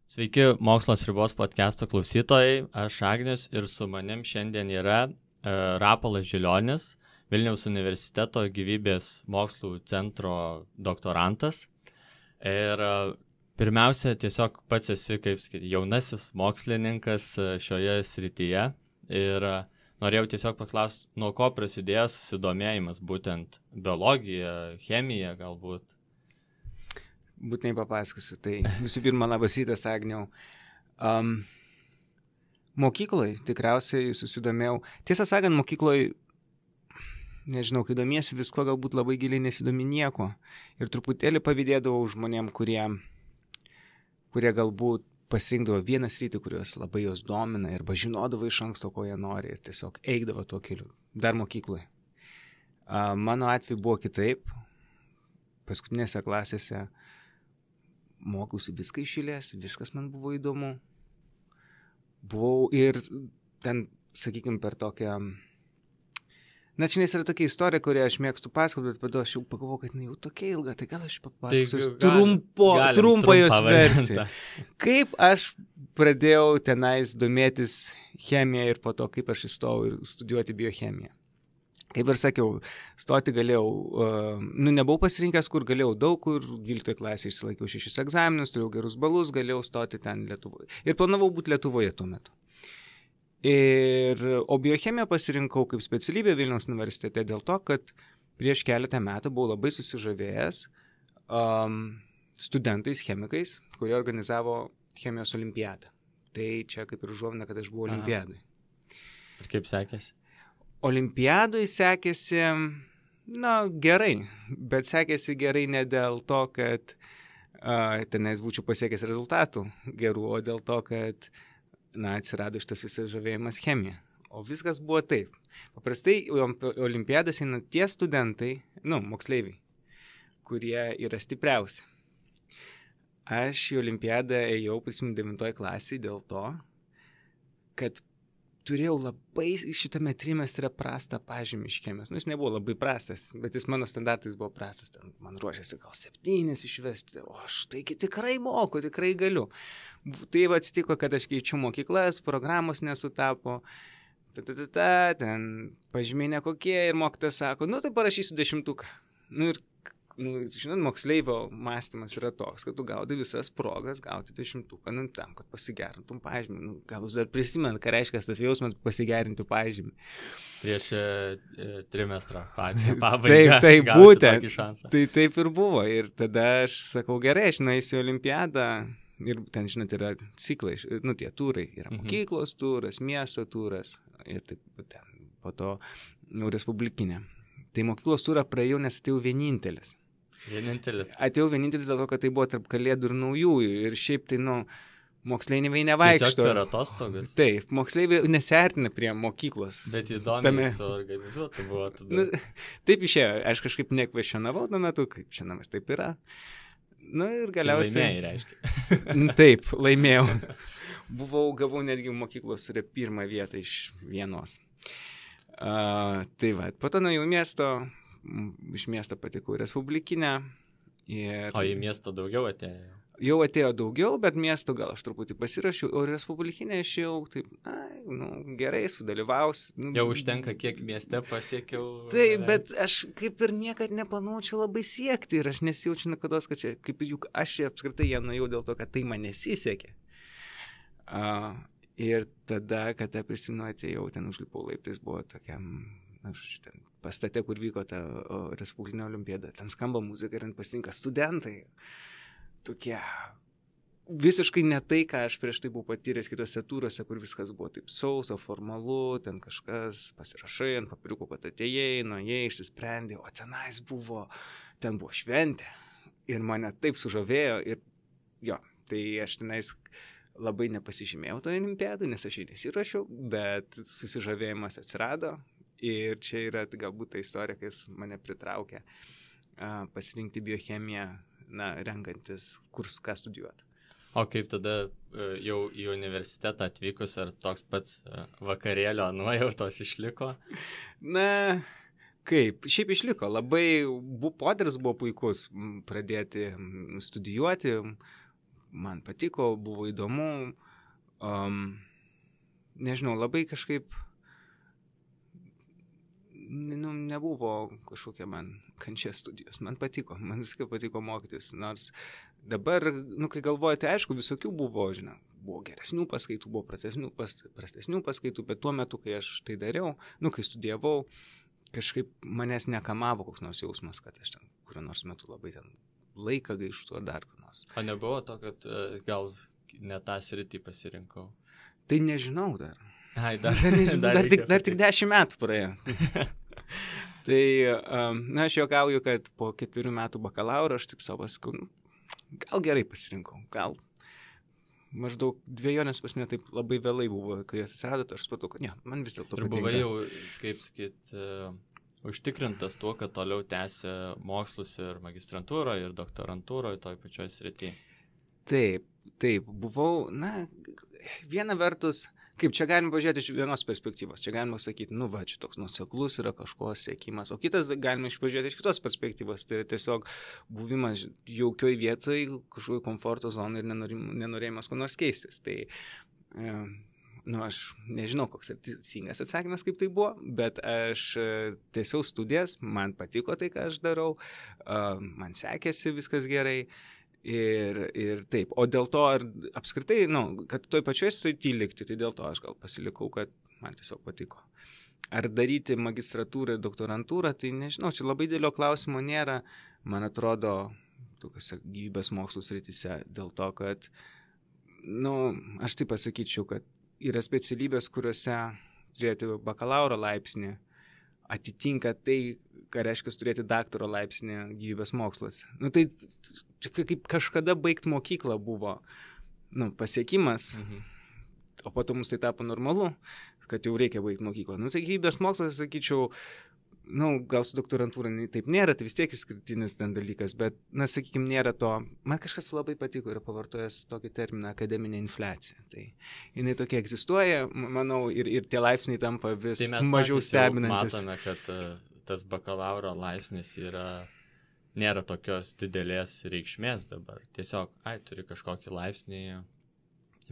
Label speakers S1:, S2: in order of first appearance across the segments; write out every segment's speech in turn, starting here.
S1: Sveiki, Mokslas ribos podcast'o klausytojai, aš Agnius ir su manim šiandien yra Rapolas Žilionis, Vilniaus universiteto gyvybės mokslų centro doktorantas. Ir pirmiausia, tiesiog pats esi, kaip sakyti, jaunasis mokslininkas šioje srityje. Ir norėjau tiesiog paklausti, nuo ko prasidėjo susidomėjimas, būtent biologija, chemija galbūt.
S2: Būtinai papasakosiu. Tai visų pirma, labas rytas, Agniau. Mokykloje tikriausiai susidomėjau. Tiesą sakant, mokykloje, nežinau, kai domiesi visko, galbūt labai giliai nesidomi nieko. Ir truputėlį pavydėdavau žmonėm, kurie galbūt pasirinkdavo vieną sritį, kurios labai jos domina ir žinodavo iš anksto, ko jie nori ir tiesiog eidavo tuo keliu. Dar mokykloje. Mano atveju buvo kitaip. Paskutinėse klasėse mokiausi viską iš eilės, viskas man buvo įdomu. Buvau ir ten, sakykime, per tokią... Na, čia yra tokia istorija, kurią aš mėgstu pasakoti, bet tada aš jau pagalvojau, kad jau tokia ilga, tai gal aš papasakosiu trumpą jos versiją. Kaip aš pradėjau tenais domėtis chemiją ir po to, kaip aš įstojau studijuoti biochemiją. Kaip ir sakiau, stoti galėjau, nebuvau pasirinkęs, kur galėjau daug, kur 12 klasėje išsilaikiau 6 egzaminus, turėjau gerus balus, galėjau stoti ten Lietuvoje. Ir planavau būti Lietuvoje tuo metu. O biochemiją pasirinkau kaip specialybę Vilniaus universitete dėl to, kad prieš keletą metų buvau labai susižavėjęs studentais, chemikais, kurie organizavo chemijos olimpiadą. Tai čia kaip ir užuomina, kad aš buvau olimpiadai.
S1: Ir kaip sekėsi?
S2: Olimpiadui sekėsi, gerai, bet sekėsi gerai ne dėl to, kad tenais būčiau pasiekęs rezultatų gerų, o dėl to, kad atsirado šitas susižavėjimas chemija. O viskas buvo taip. Paprastai olimpiadas eina tie studentai, moksleiviai, kurie yra stipriausi. Aš į olimpiadą ėjau, prisimenu, 9 klasėje dėl to, kad turėjau labai šitame trimestre prastą pažymį iš chemijos. Jis nebuvo labai prastas, bet jis mano standartais buvo prastas. Ten man ruošėsi gal 7 išvesti. O aš taigi tikrai moku, tikrai galiu. Taip atsitiko, kad aš keičiu mokyklas, programos nesutapo. Ten pažymiai nekokie ir mokytojas sako, tai parašysiu 10. Ir žinot, moksleivio mąstymas yra toks, kad tu gaudai visas progas gauti 10, tam, kad pasigerintum pažymį. Gal jūs dar prisimenu, ką reiškia tas jausmas pasigerinti pažymį.
S1: Prieš trimestrą pabaigą.
S2: Taip, būtent. Tai taip ir buvo. Ir tada aš sakau, gerai, aš nueisiu į olimpiadą. Ir ten, žinot, yra ciklai, tie turai. Yra mokyklos turas, miesto turas. Ir taip, ten, po to respublikinė. Tai mokyklos turą praėjau, nes atėjau vienintelis. Atėjau vienintelis dėl to, kad tai buvo tarp kalėdų ir naujųjų. Ir šiaip tai, moksleiviai nevaikšto.
S1: Tiesiog per atostogas.
S2: Taip, moksleiviai nesiartina prie mokyklos.
S1: Bet įdomiai suorganizuota buvo tada.
S2: Taip išėjo. Aš kažkaip nekvestionavau tuo metu, kaip čia namas taip yra. Ir galiausiai...
S1: Laimėjai, reiškia.
S2: Taip, laimėjau. Gavau netgi mokyklos pirmą vietą iš vienos. Tai va, po to nuėjau iš miesto patekau į respublikinę.
S1: O į miesto daugiau atėjo?
S2: Jau atėjo daugiau, bet miesto gal aš truputį pasirašiau, o respublikinę aš jau taip, gerai, sudalyvausiu.
S1: Jau užtenka, kiek mieste pasiekiau.
S2: Taip, bet aš kaip ir niekad neplanavau čia labai siekti ir aš nesijaučiu nekados, kad čia, kaip juk aš apskritai ją nuėjau dėl to, kad tai man nesisekė. Ir tada, kada prisimenu, atėjau, ten užlipau laiptais, buvo tokiam, ten pastate, kur vyko ta respublikinė olimpiada, ten skamba muzika ir ten pasitinka studentai. Tokie visiškai ne tai, ką aš prieš tai buvau patyręs kitose turose, kur viskas buvo taip sauso, formalu, ten kažkas pasirašai ant papiriuko, kad atėjai, nuėjai, išsisprendė, o ten buvo šventė. Ir mane taip sužavėjo ir tai aš tenais labai nepasižymėjau toje olimpiadoje, nes aš jį nesirašiau, bet susižavėjimas atsirado ir čia yra galbūt ta istorija, kai jis mane pritraukė pasirinkti biochemiją, renkantis, ką studijuoti.
S1: O kaip tada jau į universitetą atvykus, ar toks pats vakarėlio nuojautos išliko?
S2: Kaip? Šiaip išliko. Labai poderis buvo puikus pradėti studijuoti. Man patiko, buvo įdomu. Nežinau, labai kažkaip nebuvo kažkokia man kančia studijos. Man patiko, man viskai patiko mokytis. Nors dabar, kai galvoju, tai aišku, visokių buvo, buvo geresnių paskaitų, buvo prastesnių paskaitų, bet tuo metu, kai aš tai dariau, kai studijavau, kažkaip manęs nekamavo koks nors jausmas, kad aš ten kuriuo nors metu labai ten laiką gaištu ar dar kur nors.
S1: O nebuvo to, kad gal ne tą sritį pasirinkau?
S2: Tai nežinau dar.
S1: Ai,
S2: dar tik 10 metų praėjo. Tai, aš juokauju, kad po 4 metų bakalauro aš taip savo sakau, gal gerai pasirinkau, gal maždaug dvejonės pas mane taip labai vėlai buvo, kai atsirado, aš supratau, kad ne, man vis dėlto patinka.
S1: Ir buvai jau, kaip sakyt, užtikrintas tuo, kad toliau tęsia mokslus ir magistrantūroje, ir doktorantūroje, toj pačioj srityje.
S2: Taip, buvau, viena vertus, kaip čia galima pažiūrėti iš vienos perspektyvos, čia galima sakyti, čia toks nuoseklus yra kažko siekimas, o kitas galima pažiūrėti iš kitos perspektyvos, tai tiesiog buvimas jaukioj vietoj, kažkokio komforto zonai ir nenorėjimas ko nors keistis. Tai, aš nežinau, koks teisingas atsakymas, kaip tai buvo, bet aš tęsiau studijas, man patiko tai, ką aš darau, man sekėsi viskas gerai. Ir taip, o dėl to apskritai, kad toj pačioj srity likti, tai dėl to aš gal pasilikau, kad man tiesiog patiko. Ar daryti magistratūrą ir doktorantūrą, tai nežinau, čia labai didelio klausimo nėra, man atrodo, tokiuose gyvybės mokslų srityse, dėl to, kad, aš taip pasakyčiau, kad yra specialybės, kuriuose turėti bakalauro laipsnį atitinka tai, ką reiškia turėti daktaro laipsnį gyvybės mokslas. Tai kaip kažkada baigti mokyklą buvo pasiekimas, o po to mums tai tapo normalu, kad jau reikia baigti mokyklą. Tai gyvybės mokslas, sakyčiau, gal su doktorantūra taip nėra, tai vis tiek išskirtinis ten dalykas, bet, sakykime, nėra to. Man kažkas labai patiko ir pavartojęs tokį terminą akademinė infliacija. Tai jinai tokia egzistuoja, manau, ir tie laipsniai tampa vis mažiau stebinantis.
S1: Tai mes matome, kad tas bakalauro laipsnis nėra tokios didelės reikšmės dabar. Tiesiog, turi kažkokį laipsnį,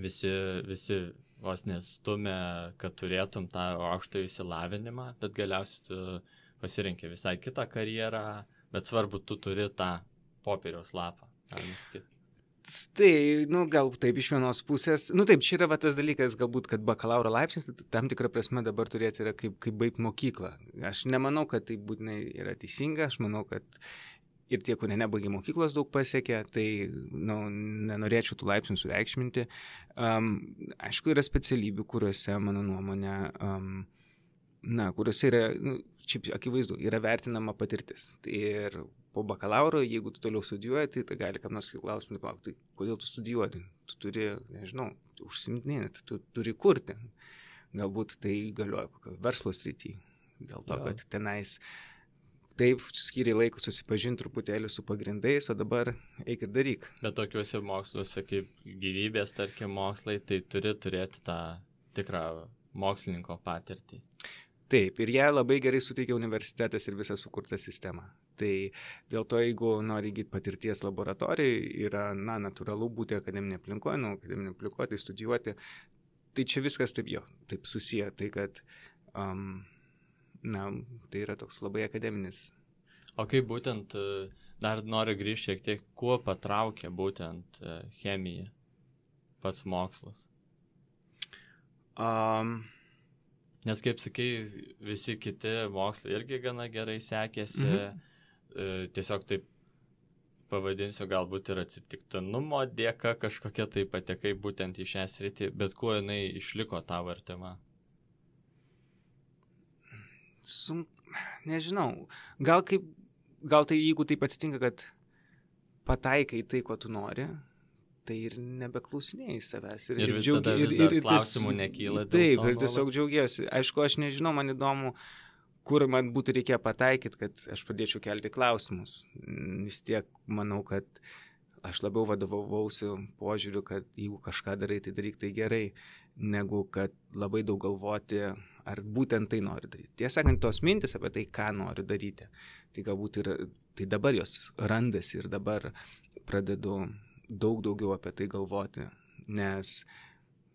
S1: visi vos nestumia, kad turėtum tą aukštą išsilavinimą, bet galiausiai tu pasirinkė visai kitą karjerą, bet svarbu, tu turi tą popieriaus lapą.
S2: Tai, gal taip iš vienos pusės. Taip, čia yra tas dalykas, galbūt, kad bakalauro laipsnis, tam tikrą prasme dabar turėti yra kaip baigti mokyklą. Aš nemanau, kad tai būtinai yra teisinga, aš manau, kad ir tie, kurie nebaigė mokyklos, daug pasiekė, tai nenorėčiau tų laipsnių sureikšminti. Aišku, yra specialybių, kuriuose, mano nuomonė, kuriuose yra, šiaip akivaizdu, yra vertinama patirtis. Ir po bakalauro, jeigu tu toliau studijuoji, tai gali kam nors klausimų paklausyti, tai kodėl tu studijuoji? Tu turi, nežinau, užsimtinėti, tu turi kurti. Galbūt tai galioja kokio verslo srity. Dėl to, kad tenais taip skyriai laiko susipažinti truputėlį su pagrindais, o dabar eik ir daryk.
S1: Bet tokiuose moksluose kaip gyvybės, tarkim, mokslai, tai turi turėti tą tikrą mokslininko patirtį.
S2: Taip, ir ją labai gerai suteikia universitetas ir visa sukurta sistema. Tai dėl to, jeigu nori įgyti patirties laboratorijai, yra, natūralu būti akademinė aplinkoje, akademinė aplinkoje, tai studijuoti. Tai čia viskas taip susiję, tai kad, tai yra toks labai akademinis.
S1: O kaip būtent, dar noriu grįžti šiek tiek, kuo patraukia būtent chemija, pats mokslas? Nes, kaip sakai, visi kiti mokslai irgi gana gerai sekėsi, tiesiog taip pavadinsiu, galbūt ir atsitiktinumo dėka kažkokia tai patekai būtent į šią sritį, bet kuo jinai išliko tavo artima?
S2: Nežinau, gal tai jeigu taip atsitinka, kad pataikai tai, ko tu nori, tai ir nebeklausinėjai savęs.
S1: Ir vis tada klausimų nekyla.
S2: Taip, ir tiesiog džiaugiesi. Aišku, aš nežinau, man įdomu, kur man būtų reikėję pataikyti, kad aš pradėčiau kelti klausimus. Vis tiek manau, kad aš labiau vadovausiu požiūriu, kad jeigu kažką darai, tai daryk tai gerai. negu kad labai daug galvoti, ar būtent tai nori daryti. Tiesą sakant, tos mintis apie tai, ką nori daryti, tai galbūt tai dabar jos randasi ir dabar pradedu daug daugiau apie tai galvoti, nes,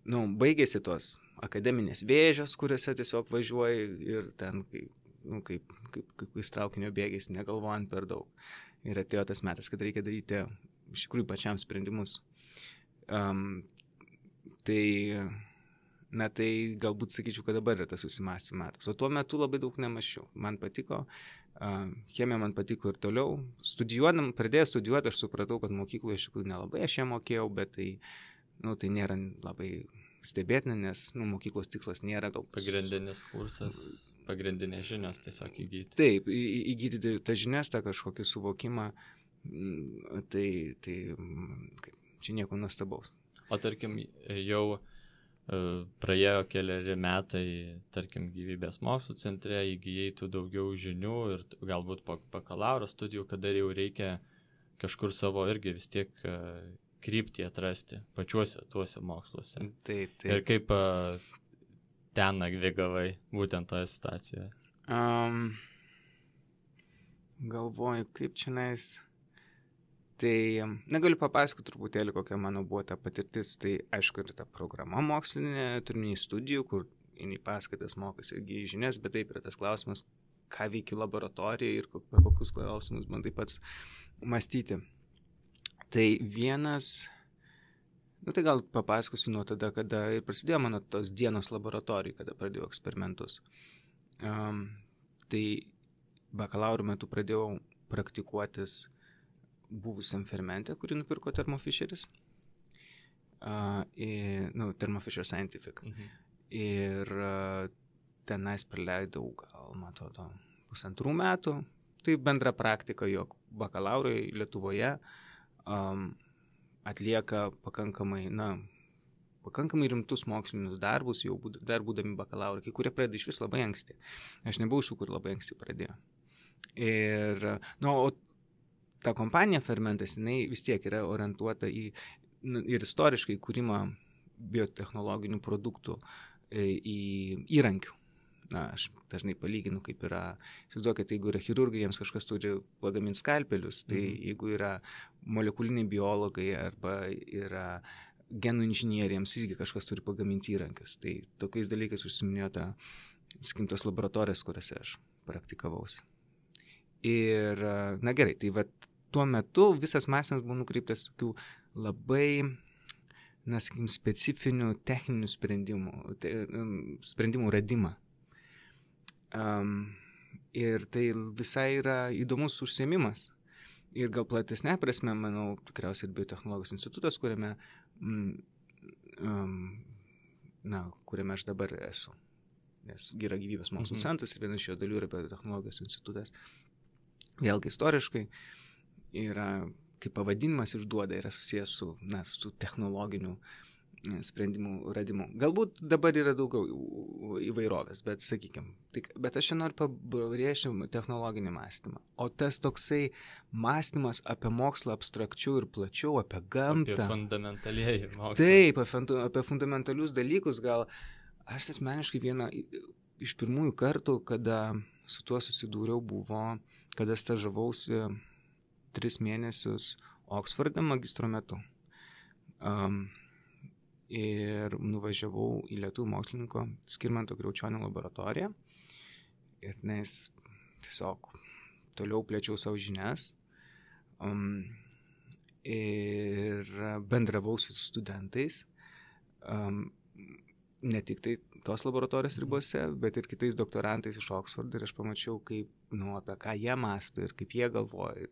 S2: baigėsi tos akademinės vėžės, kuriuose tiesiog važiuoji ir ten, kaip traukinio bėgiais, negalvojant per daug. Ir atėjo tas metas, kad reikia daryti iš tikrųjų pačiam sprendimus. Tai galbūt sakyčiau, kad dabar yra tas susimąstymo metas. O tuo metu labai daug nemaščiau. Man patiko, chemija man patiko ir toliau. Pradėjęs studijuoti, aš supratau, kad mokykloje iš tikrųjų nelabai aš ją mokėjau, bet tai nėra labai stebėtina, nes mokyklos tikslas nėra gal...
S1: Pagrindinis kursas, pagrindinės žinios tiesiog įgyti.
S2: Taip, įgyti tą žinias, tą kažkokį suvokimą, tai čia nieko nuostabaus.
S1: O tarkim, jau praėjo keliari metai, tarkim, gyvybės mokslų centre, įgyjai tų daugiau žinių ir galbūt po bakalauro studijų, kada jau reikia kažkur savo irgi vis tiek kryptį atrasti pačiuose tuose moksluose.
S2: Taip.
S1: Ir kaip ten navigavai būtent toje situacijoje?
S2: Galvoju, kaip čionais... Tai negaliu papasakoti truputėlį, kokia mano buvo ta patirtis. Tai aišku, ir ta programa mokslinė, turiniai studijų, kur į paskaitas mokosi irgi žinias, bet taip yra tas klausimas, ką veiki laboratorijoje ir kokius klausimus bandai pats mąstyti. Tai vienas, tai gal papasakosiu nuo tada, kada ir prasidėjo mano tos dienos laboratorijai, kada pradėjau eksperimentus. Tai bakalauro metu pradėjau praktikuotis buvusiam fermente, kurį nupirko Thermo Fisheris. Thermo Fisher Scientific. Ir tenais praleidau gal, man atrodo, 1,5 metų. Tai bendra praktika, jog bakalaurai Lietuvoje atlieka pakankamai rimtus mokslinius darbus, jau dar būdami bakalaurai, kai kurie pradeda iš vis labai anksti. Aš nebuvau iš tų, kur labai anksti pradėjo. Ir, o ta kompanija Fermentas, jinai vis tiek yra orientuota ir istoriškai kūrimą biotechnologinių produktų į įrankių. Aš dažnai palyginu, kaip yra, įsivaizduokit, jeigu yra chirurgai, jiems kažkas turi pagaminti skalpelius, tai jeigu yra molekuliniai biologai arba yra genų inžinieriams, irgi kažkas turi pagaminti įrankius. Tai tokiais dalykais užsiminėjo tos laboratorijos, kuriuose aš praktikavausi. Ir, gerai, tai tuo metu visas mąstymas buvo nukreiptas tokių labai, specifinių techninių sprendimų radimą. Ir tai visai yra įdomus užsiėmimas. Ir gal platesnė prasme, manau, tikriausiai ir biotechnologijos institutas, kuriame aš dabar esu. Nes yra gyvybės mokslų centras ir viena iš jo dalių yra biotechnologijos institutas. Vėlgi istoriškai yra, kaip pavadinimas išduoda, yra susijęs su technologiniu sprendimų radimu. Galbūt dabar yra daugiau įvairovės, bet sakykime, bet aš čia noriu pabrėžti technologinį mąstymą. O tas toksai mąstymas apie mokslą abstrakčiau ir plačiau, apie gamtą.
S1: Apie fundamentalieji mokslai.
S2: Taip, apie fundamentalius dalykus gal. Aš asmeniškai vieną iš pirmųjų kartų, kada su tuo susidūriau, buvo, kada stažavausi 3 mėnesius Oksforde magistro metu. Ir nuvažiavau į lietuvių mokslininko Skirmanto Kriaučionio laboratoriją. Ir nes tiesiog toliau plėčiau savo žinias. Ir bendravau su studentais. Ne tik tai tos laboratorijos ribose, bet ir kitais doktorantais iš Oksfordo. Ir aš pamačiau, apie ką jie mąsto ir kaip jie galvoja.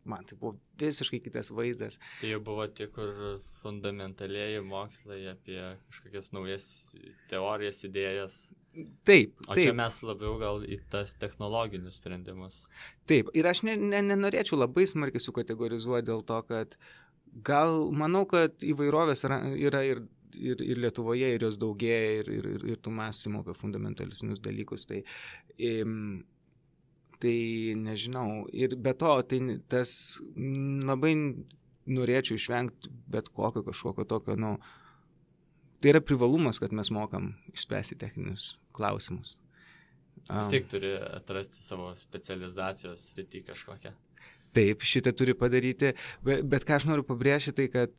S2: Man tai buvo visiškai kitas vaizdas.
S1: Tai jau buvo tik fundamentalieji mokslai apie kažkokias naujas teorijas, idėjas.
S2: Taip.
S1: O čia mes labiau gal į tas technologinius sprendimus.
S2: Taip. Ir aš nenorėčiau labai smarkiai sukategorizuoti dėl to, kad manau, kad įvairovės yra ir Lietuvoje, ir jos daugėja, ir tų mąstymų apie fundamentalisnius dalykus. Tai nežinau. Ir be to, tas labai norėčiau išvengti bet kokio kažkokio tokio, tai yra privalumas, kad mes mokam išspręsti techninius klausimus.
S1: Vis tiek turi atrasti savo specializacijos sritį kažkokią.
S2: Taip, šitą turi padaryti, bet ką aš noriu pabrėžti, tai kad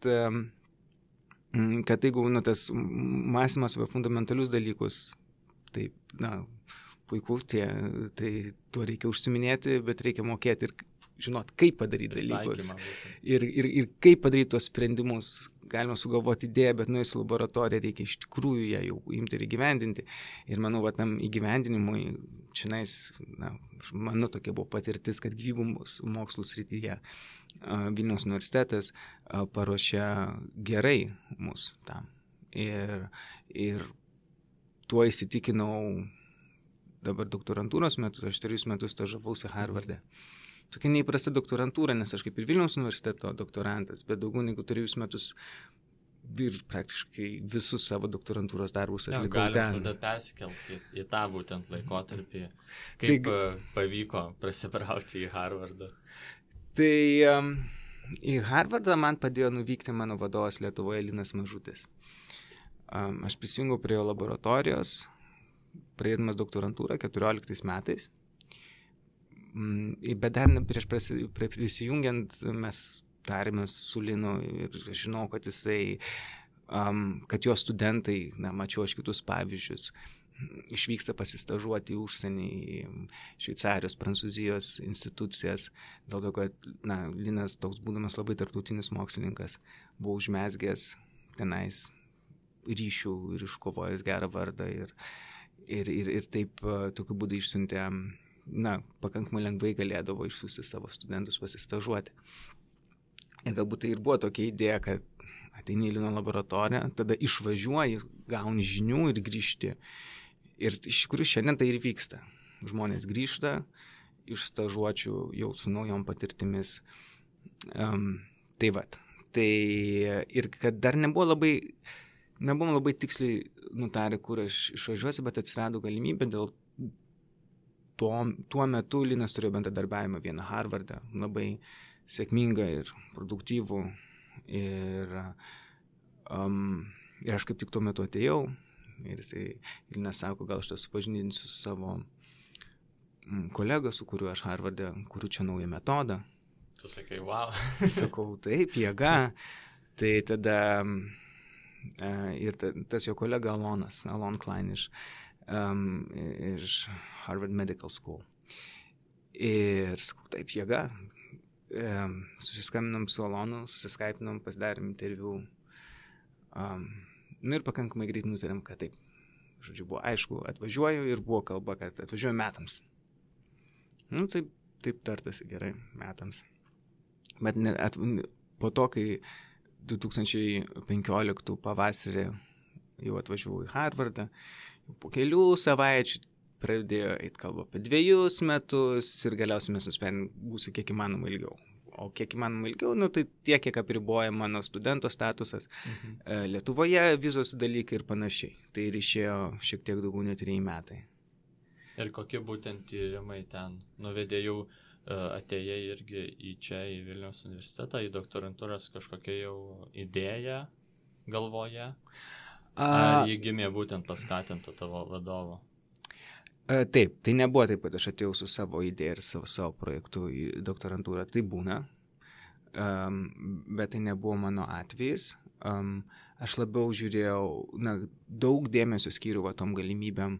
S2: jeigu tas mąstymas apie fundamentalius dalykus, taip, puiku, tai tuo reikia užsiminėti, bet reikia mokėti ir žinot, kaip padaryti dalykus. Ir kaip padaryti tuos sprendimus. Galima sugalvoti idėją, bet nuėjus į laboratoriją reikia iš tikrųjų ją jau imti ir įgyvendinti. Ir manau, tam įgyvendinimui, čionais, mano tokia buvo patirtis, kad gyvybės mokslų srityje Vilniaus universitetas paruošė gerai mus tam. Ir tuo įsitikinau dabar doktorantūros metu, aš 3 metus stažavausi Harvarde. Tokia neįprasta doktorantūra, nes aš kaip ir Vilniaus universiteto doktorantas, bet daugiau negu 3 metus ir praktiškai visus savo doktorantūros darbus atlikau ten.
S1: Galim tada persikelti į tą būtent laikotarpį. Kaip pavyko prasibrauti į Harvardą?
S2: Tai į Harvardą man padėjo nuvykti mano vadovas Lietuvoje Linas Mažutis. Aš prisijungiau prie jo laboratorijos, pradėdamas doktorantūrą 14 metais. Bet dar prieš prisijungiant mes tarėmės su Linu ir žinau, kad jisai, kad jo studentai, mačiau aš kitus pavyzdžius, išvyksta pasistažuoti į užsienį, į Šveicarijos, Prancūzijos institucijas, dėl to, kad Linas toks būdamas labai tarptautinis mokslininkas, buvo užmezgęs tenais ryšių ir iškovojęs gerą vardą ir taip tokiu būdu išsiuntė pakankamai lengvai galėdavo išsiųsti savo studentus pasistažuoti. Ir galbūt tai ir buvo tokia idėja, kad ateini į Lino laboratoriją, tada išvažiuoji, gauni žinių ir grįžti. Ir iš tikrųjų šiandien tai ir vyksta. Žmonės grįžta iš stažuočių jau su naujom patirtimis. Tai vat. Tai ir kad dar nebuvom labai tiksliai nutarę, kur aš išvažiuosiu, bet atsirado galimybė dėl tuo metu Linas turėjo bendradarbiavimą vieną Harvardą, labai sėkmingą ir produktyvų. Ir aš kaip tik tuo metu atėjau ir Linas sako, gal aš tą supažindinsiu su savo kolega, su kuriuo aš Harvarde kuriu čia naują metodą.
S1: Tu sakai, wow.
S2: Sakau, taip, jėga. Tai tada ir tas jo kolega Alon Klein iš Harvard Medical School. Ir sakau, taip, jėga. Susiskambinom su Alonu, susiskaipinom, pasidarėm interviu. Ir pakankamai greit nutarėm, kad taip. Žodžiu, buvo aišku, atvažiuoju ir buvo kalba, kad atvažiuoju metams. Taip tartasi gerai, metams. Bet po to, kai 2015 pavasarį jau atvažiavau į Harvardą, po kelių savaičių pradėjo eiti kalba apie 2 metus ir galiausiai mes nusprendėm būsiu kiek įmanoma ilgiau. O kiek įmanoma ilgiau, tai tiek, kiek apriboja mano studento statusas. Lietuvoje vizos dalykai ir panašiai. Tai ir išėjo šiek tiek daugiau nei 3 metai.
S1: Ir kokie būtent tyrimai ten nuvedė jau atėjai irgi į čia, į Vilniaus universitetą, į doktorantūras kažkokia jau idėja galvoje? Ar jį gimė būtent paskatinta tavo vadovo?
S2: Taip, tai nebuvo taip, kad aš atėjau su savo idėja ir savo projektu į doktorantūrą. Tai būna, bet tai nebuvo mano atvejis. Aš labiau žiūrėjau, daug dėmesio skyriau tom galimybėm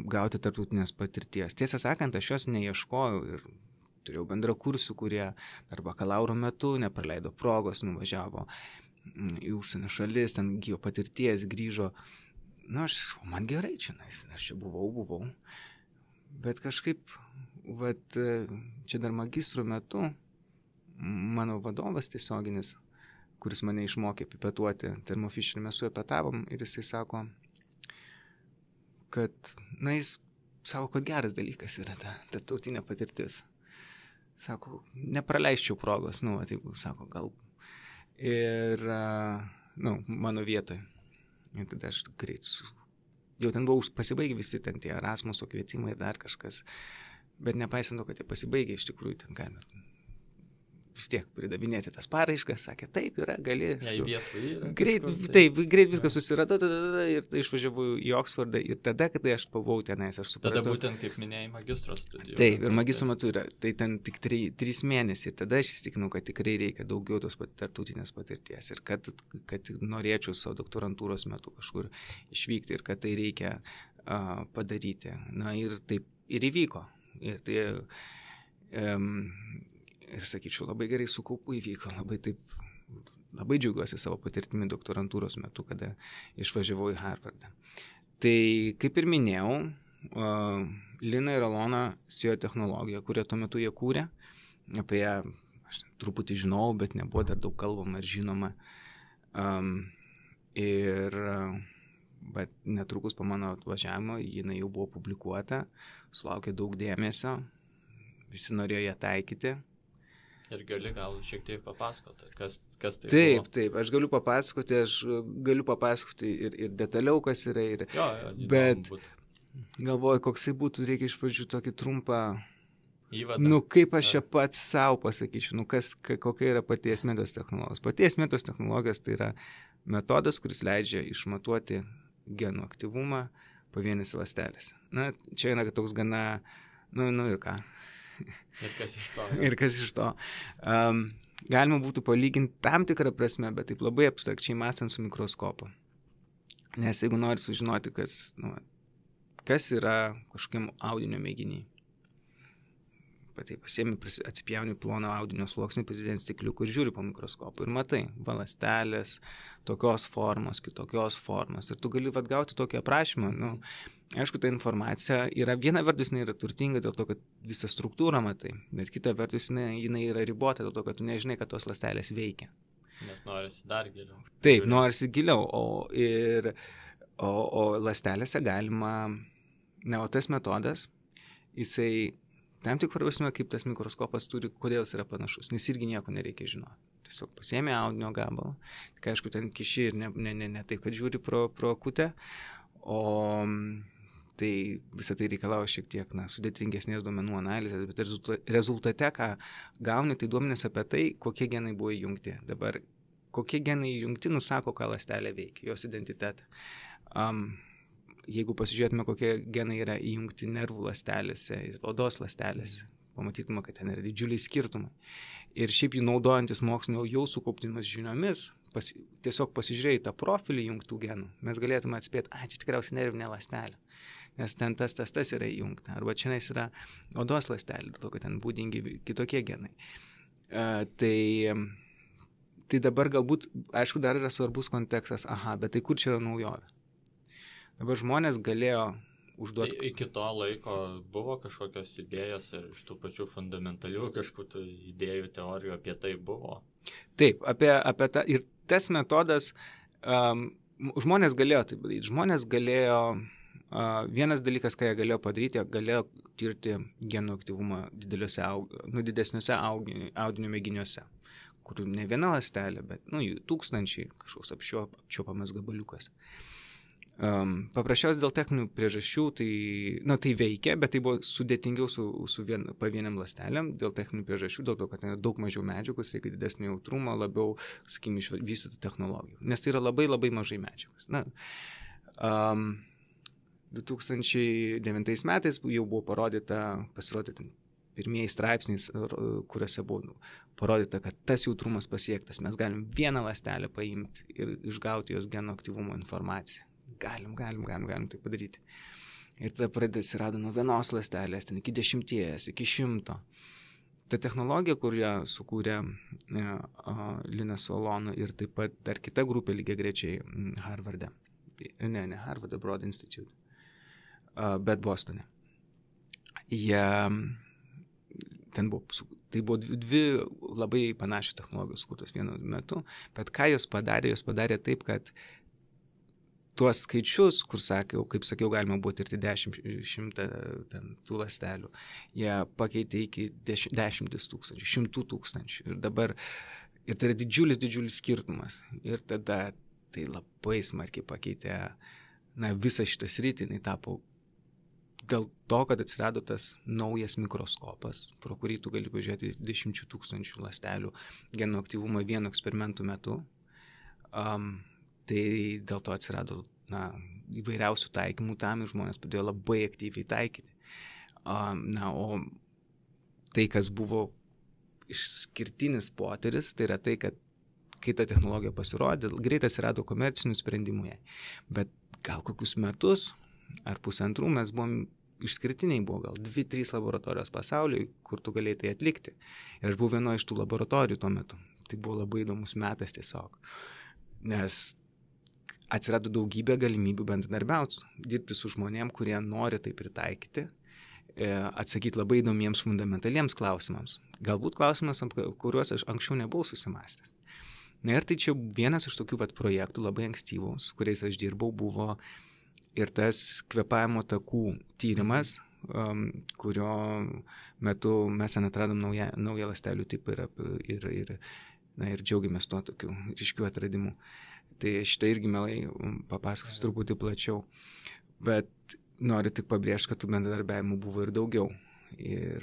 S2: gauti tarptautinės patirties. Tiesą sakant, aš jos neieškojau ir turėjau bendrakursių, kurie dar bakalauro metu nepraleido progos, nuvažiavo į užsienio šalis, ten gyvo patirties, grįžo. Man gerai čia, aš čia buvau. Bet kažkaip, čia dar magistro metu, mano vadovas tiesioginis, kuris mane išmokė pipetuoti termofisherį, mes su juo pietavom ir jisai sako, kad, jis sako, kad geras dalykas yra ta tautinė patirtis. Sako, nepraleisčiau progos, taip, sako, gal. Ir, mano vietoj. Ir tada aš greit jau ten buvau pasibaigę visi ten tie Erasmuso kvietimai ir dar kažkas. Bet nepaisant to, kad jie pasibaigė, iš tikrųjų ten galima vis tiek pridavinėti tas paraiškas, sakė, taip yra, gali.
S1: Greit
S2: viską susiradau ir išvažiavau į Oksfordą ir tada, kada aš buvau tenais, aš supratau.
S1: Tada būtent, kaip minėjai, magistro studijų.
S2: Taip, ir magistro metu yra, tai ten tik 3 mėnesiai, tada aš įsitikinau, kad tikrai reikia daugiau tos tarptautinės patirties ir kad norėčiau savo doktorantūros metu kažkur išvykti ir kad tai reikia padaryti. Na ir taip ir įvyko. Ir tai, ir sakyčiau, labai gerai su kaupu įvyko, labai džiaugiuosi savo patirtimi doktorantūros metu, kada išvažiavau į Harvardą. Tai, kaip ir minėjau, Lina ir Alona sėjo technologiją, kurią tuo metu jie kūrė. Apie ją aš truputį žinau, bet nebuvo dar daug kalbama ir žinoma. Bet netrukus po mano atvažiavimo jinai jau buvo publikuota, sulaukė daug dėmesio, visi norėjo ją taikyti.
S1: Ir gali gal šiek tiek papasakoti, kas tai
S2: buvo.
S1: Taip,
S2: aš galiu papasakoti ir detaliau, kas yra. Bet galvoju, koksai būtų, reikia iš pradžių tokį trumpą įvadą. Kaip aš čia pats savo pasakyčiau, kokia yra paties metos technologijos. Paties metos technologijos tai yra metodas, kuris leidžia išmatuoti genų aktyvumą pavienėse ląstelėse. Na, čia yra toks gana, ir ką. Ir kas iš to. Galima būtų palyginti tam tikrą prasme, bet taip labai abstrakčiai mąstant su mikroskopu. Nes jeigu nori sužinoti, kas yra kažkokiam audinio mėginiai, tai pasiemi, atsipjauni ploną audinio sluoksnį, pasidėti stikliukų ir žiūri po mikroskopu ir matai, ląstelės, tokios formos, kitokios formos. Ir tu gali gauti tokį aprašymą. Aišku, ta informacija yra, viena vertus jinai yra turtinga dėl to, kad visą struktūrą matai, bet kita vertus jinai yra ribota dėl to, kad tu nežinai, kad tos ląstelės veikia.
S1: Nes norisi dar giliau.
S2: Taip, norisi giliau. O ląstelėse galima, o tas metodas, jisai tam tik prasme, kaip tas mikroskopas turi, kodėl jis yra panašus, nes irgi nieko nereikia žinoti. Tiesiog pasiėmė audinio gabalą, kai aišku, ten kiši ir ne taip, kad žiūri pro akutę, o tai visą tai reikalauja šiek tiek sudėtingesnės duomenų analizės, bet rezultate, ką gauni, tai duomenys apie tai, kokie genai buvo įjungti. Dabar, kokie genai įjungti, nusako, ką ląstelė veikia, jos identitetą. Jeigu pasižiūrėtume, kokie genai yra įjungti nervų ląstelėse ir odos ląstelėse, pamatytume, kad ten yra didžiuliai skirtumai. Ir šiaip jų naudojantis mokslinio jau sukauptimis žiniomis, tiesiog pasižiūrėję tą profilį įjungtų genų, mes galėtume atspėti, čia tikriausiai nervinė ląstelė, nes ten tas yra įjungta. Arba čia yra odos ląstelė, dėl to, kad ten būdingi kitokie genai. Tai dabar galbūt, aišku, dar yra svarbus kontekstas, bet tai kur čia yra naujovė? Dabar žmonės galėjo užduoti.
S1: Iki to laiko buvo kažkokios idėjos ir iš tų pačių fundamentalių kažkokių idėjų, teorijų apie tai buvo.
S2: Taip, apie tą. Ir tas metodas, žmonės galėjo tai padaryti. Žmonės galėjo, vienas dalykas, ką jie galėjo padaryti, jie galėjo tirti genų aktyvumą didesniuose audinio mėginiuose, kur ne viena ląstelė, bet jų tūkstančiai, kažkoks apčiuopamas gabaliukas. Paprasčiausiai dėl techninių priežasčių tai veikia, bet tai buvo sudėtingiau su pavieniam ląstelėm dėl techninių priežasčių, dėl to, kad daug mažiau medžiagos, reikia didesnio jautrumo, labiau, sakykime, išvystytų technologijų, nes tai yra labai labai mažai medžiagos. 2009 metais jau buvo pasirodyti pirmieji straipsniais, kuriuose buvo parodyta, kad tas jautrumas pasiektas, mes galim vieną ląstelę paimti ir išgauti jos genų aktyvumo informaciją. Galim tai padaryti. Ir tada atsirado nuo vienos ląstelės, ten iki 10, iki 100. Ta technologija, kurią sukūrė Lina su Alona ir taip pat dar kita grupė lygiagrečiai Harvarde. Ne Harvarde, Broad Institute, bet Bostone. Tai buvo dvi labai panašios technologijos sukurtos vienu metu, bet ką jos padarė taip, kad tuos skaičius, kur kaip sakiau, galima buvo tirti 10-100 tų ląstelių, jie pakeitė iki 10 tūkstančių, 100 tūkstančių. Ir tai yra didžiulis skirtumas. Ir tada tai labai smarkiai pakeitė visą šitą sritį, jinai tapo dėl to, kad atsirado tas naujas mikroskopas, pro kurį tu gali pažiūrėti 10 000 ląstelių genų aktyvumą vieno eksperimentų metu, tai dėl to atsirado įvairiausių taikymų tam ir žmonės pradėjo labai aktyviai taikyti. O tai, kas buvo išskirtinis potyris, tai yra tai, kad kai ta technologija pasirodė, greitai atsirado komercinių sprendimų jai. Bet gal kokius metus ar pusantrų mes buvom išskirtiniai, buvo gal 2-3 laboratorijos pasaulyje, kur tu galėjai tai atlikti. Ir aš buvau vienoje iš tų laboratorijų tuo metu. Tai buvo labai įdomus metas tiesiog. Nes atsirado daugybė galimybių bendradarbiauti, dirbti su žmonėm, kurie nori tai pritaikyti, atsakyti labai įdomiems fundamentaliems klausimams. Galbūt klausimas, kuriuos aš anksčiau nebuvau susimąstęs. Na ir tai čia vienas iš tokių projektų labai ankstyvų, su kuriais aš dirbau, buvo ir tas kvėpavimo takų tyrimas, kurio metu mes atradom naują ląstelių tipą ir džiaugiamės tuo tokiu ryškiu atradimu. Tai šitą irgi mielai papasakosiu truputį plačiau. Bet noriu tik pabrėžti, kad tų bendradarbiavimų buvo ir daugiau. Ir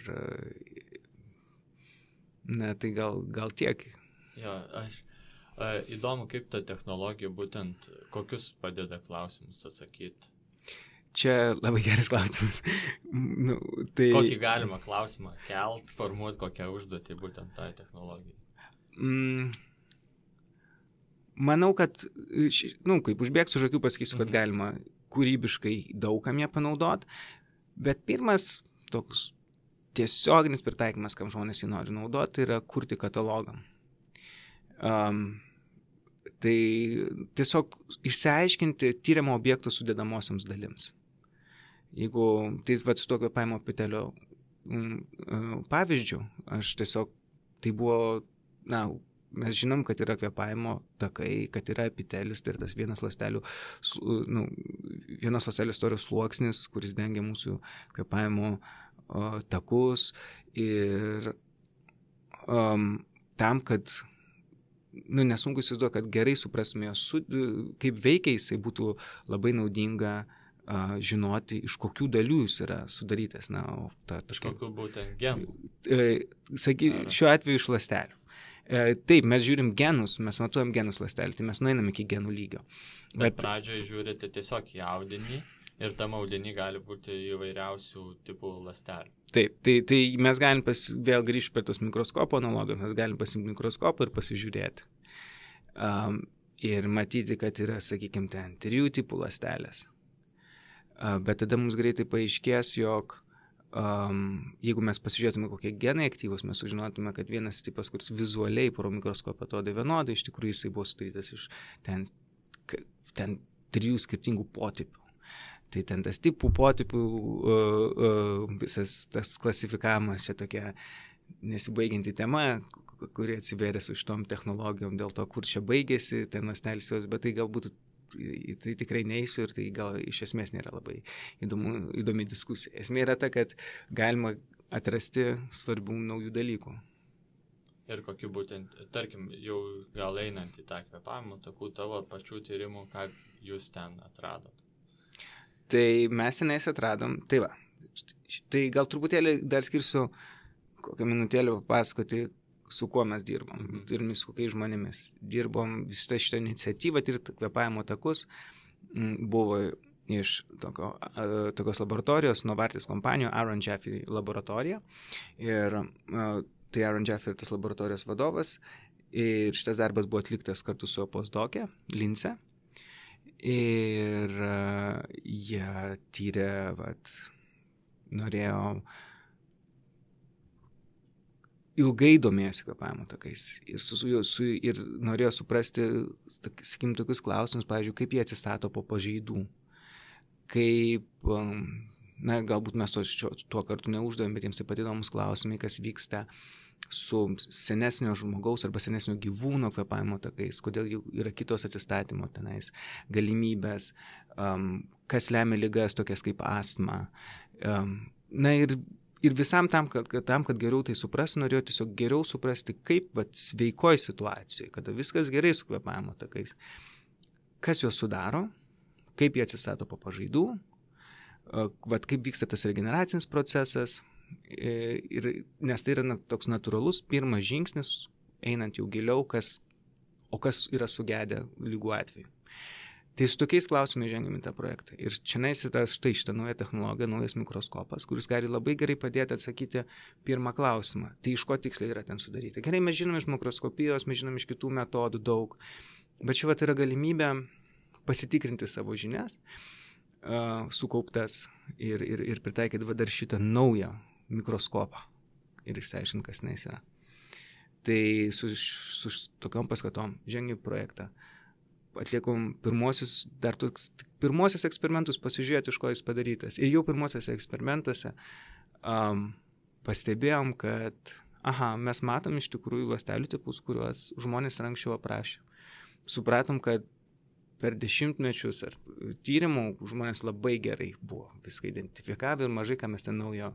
S2: tai gal tiek.
S1: Jo, įdomu, kaip ta technologija būtent, kokius padeda klausimus atsakyti.
S2: Čia labai geras klausimas.
S1: Kokį galima klausimą kelt, formuoti kokią užduotį būtent tai technologijai?
S2: Manau, kad, kaip užbėgsiu už akių, pasakysiu, kad galima kūrybiškai daugam ją panaudoti, bet pirmas toks tiesioginis pritaikymas, kam žmonės jį nori naudoti, yra kurti katalogam. Tai tiesiog išsiaiškinti tyriamo objekto sudėdamosioms dalims. Jeigu tai su to kvėpavimo epitelio pavyzdžiu, aš tiesiog, tai buvo, mes žinom, kad yra kvėpavimo takai, kad yra epitelis, tai yra tas vienas ląstelės storio sluoksnis, kuris dengia mūsų kvėpavimo takus ir tam, kad nesunku įsivaizduoti, kad gerai suprastume, kaip veikia jisai, būtų labai naudinga žinoti, iš kokių dalių jis yra sudarytas.
S1: Kokių būtent genų?
S2: Šiuo atveju iš ląstelių. Taip, mes žiūrim genus, mes matuojam genus ląstelį, tai mes nueinam iki genų lygio.
S1: Bet pradžioje žiūrite tiesiog į audinį ir tam audinį gali būti įvairiausių tipų ląstelių.
S2: Taip, tai mes galim vėl grįžti prie tos mikroskopo analogijos, mes galim pasimti mikroskopą ir pasižiūrėti. Ir matyti, kad yra, sakykime, ten 3 tipų ląstelės. Bet tada mums greitai paaiškės, jog jeigu mes pasižiūrėtume, kokie genai aktyvus, mes sužinotume, kad vienas tipas, kuris vizualiai pro mikroskopą atrodė vienodai, iš tikrųjų jisai buvo sudarytas iš ten 3 skirtingų potipių. Tai ten tas tipų, potipių, visas tas klasifikavimas čia tokia nesibaigianti tema, kuri atsivėrė su šitom technologijom dėl to, kur čia baigėsi ten ląstelės, bet tai galbūt tai tikrai neįsiu ir tai gal iš esmės nėra labai įdomi diskusija. Esmė yra ta, kad galima atrasti svarbių naujų dalykų.
S1: Ir kokiu būtent, tarkim, jau gal einant į tą kvėpavimo takų tavo pačių tyrimų, ką jūs ten atradot?
S2: Tai mes senais atradom, tai va, tai gal truputėlį dar skirsiu kokią minutėlę papasakoti, su kuo mes dirbom ir su kokiais žmonėmis. Dirbom visą šitą iniciatyvą, tirti kvėpavimo takus, buvo iš tokios laboratorijos, Novartis kompanijų, Aaron Jaffe laboratorija. Ir tai Aaron Jaffe ir tas laboratorijos vadovas. Ir šitas darbas buvo atliktas kartu su postdokė, Lince. Ir jie tyrė, norėjo ilgai domėjosi kvėpavimo takais ir norėjo suprasti, sakykim, tokius klausimus, pavyzdžiui, kaip jie atsistato po pažeidų, kaip, galbūt mes tuo kartu neuždavėm, bet jiems taip pat įdomus klausimai, kas vyksta su senesnio žmogaus arba senesnio gyvūno kvėpavimo takais, kodėl jų yra kitos atsistatymo tenais galimybės, kas lemia ligas tokias kaip astma. Ir visam tam, kad geriau tai suprasti, norėjau tiesiog geriau suprasti, kaip sveikoj situacijoje, kada viskas gerai su kvėpavimo takais, kas juos sudaro, kaip jie atsistato po pažaidų, vat kaip vyksta tas regeneracinis procesas, nes tai yra toks natūralus pirmas žingsnis, einant jau giliau, kas yra sugedę lygų atveju. Tai su tokiais klausimais žengiam į tą projektą. Ir čia yra štai šitą naują technologiją, naujas mikroskopas, kuris gali labai gerai padėti atsakyti pirmą klausimą. Tai iš ko tiksliai yra ten sudaryti. Gerai, mes žinom iš mikroskopijos, mes žinom iš kitų metodų daug, bet čia yra galimybė pasitikrinti savo žinias, sukauptas ir pritaikyti dar šitą naują mikroskopą ir išsiaiškinti, kas jis yra. Tai su tokiom paskatom žengiu projektą. Atliekom pirmosius eksperimentus, pasižiūrėti, iš ko jis padarytas. Ir jau pirmosiuose eksperimentuose pastebėjom, kad mes matom iš tikrųjų ląstelių tipus, kuriuos žmonės anksčiau aprašė. Supratom, kad per dešimtmečius ar tyrimų žmonės labai gerai buvo viską identifikavę ir mažai, ką mes ten naujo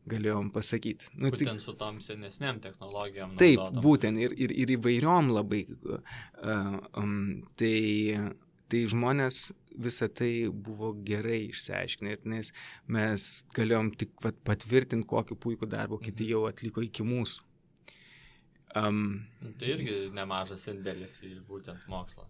S2: galėjom pasakyti.
S1: Būtent su tom senesniam technologijom.
S2: Taip, būtent ir įvairiom labai. Tai žmonės visą tai buvo gerai išsiaiškinę, nes mes galėjom tik patvirtinti, kokį puikų darbą kiti jau atliko iki mūsų.
S1: Tai irgi nemažas indėlis į būtent mokslą.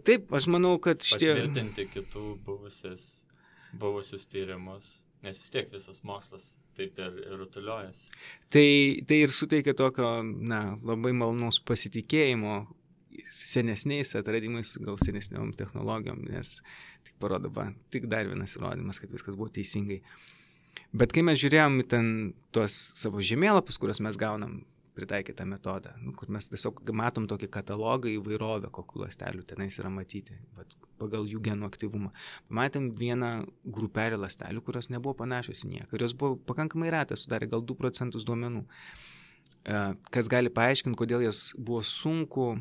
S2: Taip, aš manau, kad
S1: patvirtinti kitų buvusius tyrimus, nes vis tiek visas mokslas taip ir rutuliojasi.
S2: Tai ir suteikia tokio, labai malonaus pasitikėjimo senesniais atradimais, gal senesniom technologijom, nes tik parodo, tik dar vienas įrodymas, kad viskas buvo teisingai. Bet kai mes žiūrėjom į ten tuos savo žemėlapius, kuriuos mes gaunam pritaikytą metodą, kur mes tiesiog matom tokį katalogą įvairovę, kokių ląstelių tenais yra matyti, pagal jų genų aktyvumą. Pamatėm vieną grupelę ląstelių, kurios nebuvo panašios į nieką, kurios buvo pakankamai retas, sudarė gal 2% duomenų, kas gali paaiškinti, kodėl jas buvo sunku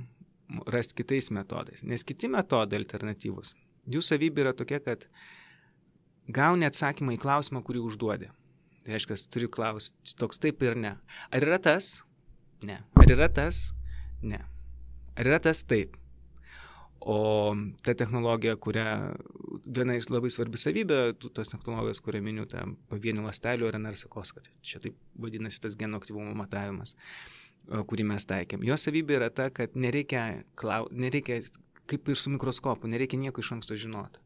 S2: rasti kitais metodais. Nes kiti metodai alternatyvus, jų savybė yra tokia, kad gauni atsakymą į klausimą, kurį užduodi. Tai reiškia, turi klausti toks taip ir ne. Ar yra tas? Ne. Ar yra tas? Ne. Ar yra tas? Taip. O ta technologija, viena iš labai svarbi savybė, tos technologijos, kurią miniu, ta pavienių ląstelių RNR sekoskaita, čia taip vadinasi tas genų aktyvumo matavimas, kurį mes taikėm. Jo savybė yra ta, kad nereikia, kaip ir su mikroskopu, nereikia nieko iš anksto žinoti.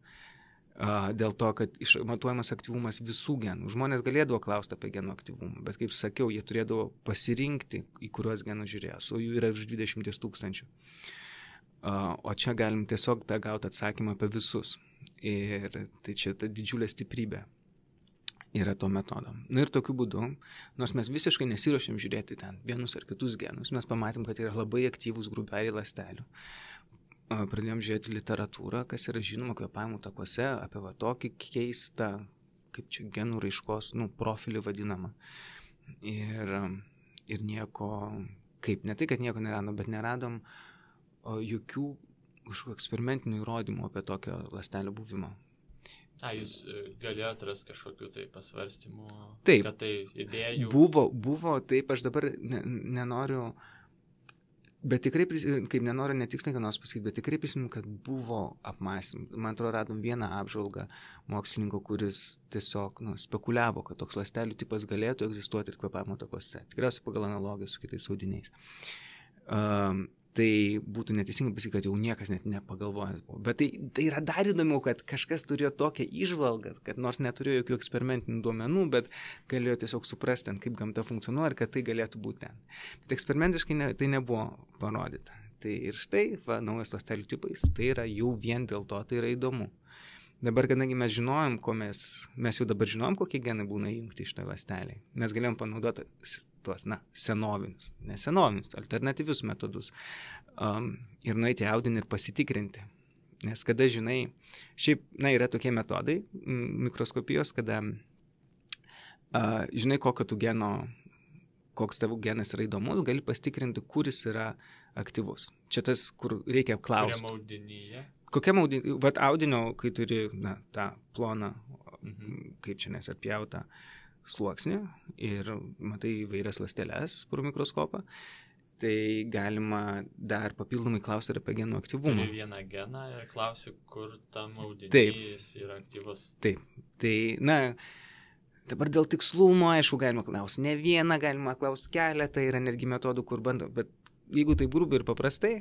S2: Dėl to, kad matuojamas aktyvumas visų genų. Žmonės galėdavo klausti apie genų aktyvumą, bet kaip sakiau, jie turėdavo pasirinkti, į kuriuos genus žiūrės, o jų yra virš 20 000. O čia galim tiesiog tą gauti atsakymą apie visus. Ir tai čia ta didžiulė stiprybė yra to metodo. Ir tokiu būdu, nors mes visiškai nesiruošėm žiūrėti ten vienus ar kitus genus, mes pamatėm, kad yra labai aktyvūs grupeliai ląstelių. Pradėjom žiūrėti literatūrą, kas yra žinoma kvėpavimo takuose, apie tokį keistą, kaip čia genų raiškos, profilį vadinamą. Ir nieko, ne tai, kad nieko neradom, bet neradom jokių eksperimentinių įrodymų apie tokio ląstelio buvimą.
S1: Jūs galėjote rasti kažkokių tai pasvarstymų,
S2: taip,
S1: kad tai idėjų?
S2: Buvo, taip, aš dabar nenoriu... Bet tikrai, kaip nenoriu netiksliai ką nors pasakyti, bet tikrai prisimenu, kad buvo apmąstymų. Man atrodo, radom vieną apžvalgą mokslininko, kuris tiesiog spekuliavo, kad toks ląstelių tipas galėtų egzistuoti ir kvėpavimo takuose. Tikriausiai pagal analogiją su kitais audiniais. Tai būtų neteisingai pasakyti, kad jau niekas net nepagalvojęs buvo. Bet tai yra dar įdomiau, kad kažkas turėjo tokią įžvalgą, kad nors neturėjo jokių eksperimentinių duomenų, bet galėjo tiesiog suprasti, kaip gamta funkcionuoja ir kad tai galėtų būti ten. Bet eksperimentiškai tai nebuvo parodyta. Tai ir štai, naujas ląstelių tipais, tai yra jau vien dėl to, tai yra įdomu. Dabar, kadangi mes žinojom, mes jau dabar žinojom, kokie genai būna įjungti iš tą ląstelį, mes galėjom panaudoti tuos, senovinius, alternatyvius metodus ir nueiti į audinį ir pasitikrinti. Nes kada žinai, šiaip, yra tokie metodai mikroskopijos, kada žinai, koks tavo genas yra įdomus, gali pasitikrinti, kuris yra aktyvus. Čia tas, kur reikia apklausti.
S1: Kokiam audinyje?
S2: Kokiam audinyje? Audinio, kai turi tą ploną, kaip čia apjautą sluoksnį ir matai įvairias ląsteles pro mikroskopą tai galima dar papildomai klausti ir apie genų aktyvumą.
S1: Turi vieną geną ir klausi, kur tam audinys
S2: Taip.
S1: yra aktyvus.
S2: Taip, tai, dabar dėl tikslumo, aišku, galima klausti ne vieną, galima klausti keletą, yra netgi metodų, kur bando, bet jeigu tai grubiai ir paprastai,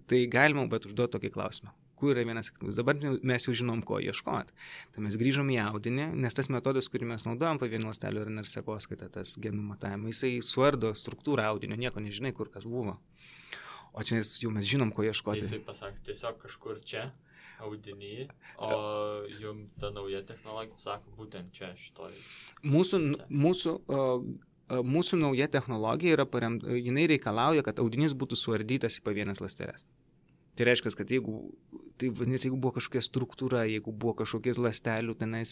S2: tai galima, bet užduoti tokį klausimą. Kur yra vienas aktyvus. Dabar mes jau žinom, ko ieškoti. Tai mes grįžom į audinį, nes tas metodas, kurį mes naudojam pavienių ląstelių RNR sekoskaita, tas genų matavimą, jisai suardo struktūrą audinio, nieko nežinai, kur kas buvo. O čia jau mes žinom, ko ieškoti.
S1: Jisai pasakė, tiesiog kažkur čia, audiny, o jums ta nauja technologija sako, būtent čia, šitoj.
S2: Mūsų nauja technologija yra jinai reikalauja, kad audinys būtų suardytas į pavienes ląsteles. Tai reiškia, kad jeigu buvo kažkokia struktūra, jeigu buvo kažkokie ląstelių tenais,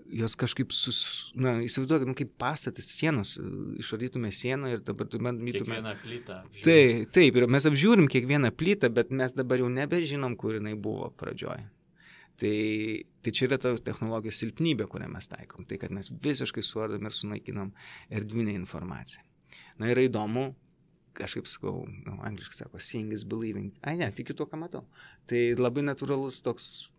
S2: jos kažkaip, įsivaizduokit, kaip pastatas sienos, išardytume sieną ir dabar bandytume...
S1: Kiekvieną plytą.
S2: Taip, ir mes apžiūrim kiekvieną plytą, bet mes dabar jau nebežinom, kur jinai buvo pradžioj. Tai čia yra ta technologijos silpnybė, kurią mes taikom. Tai, kad mes visiškai suardom ir sunaikinam erdvinę informaciją. Na, yra įdomu, kažkaip sakau, angliškai sako, seeing is believing. Tikiu tuo, ką matau. Tai labai natūralus toks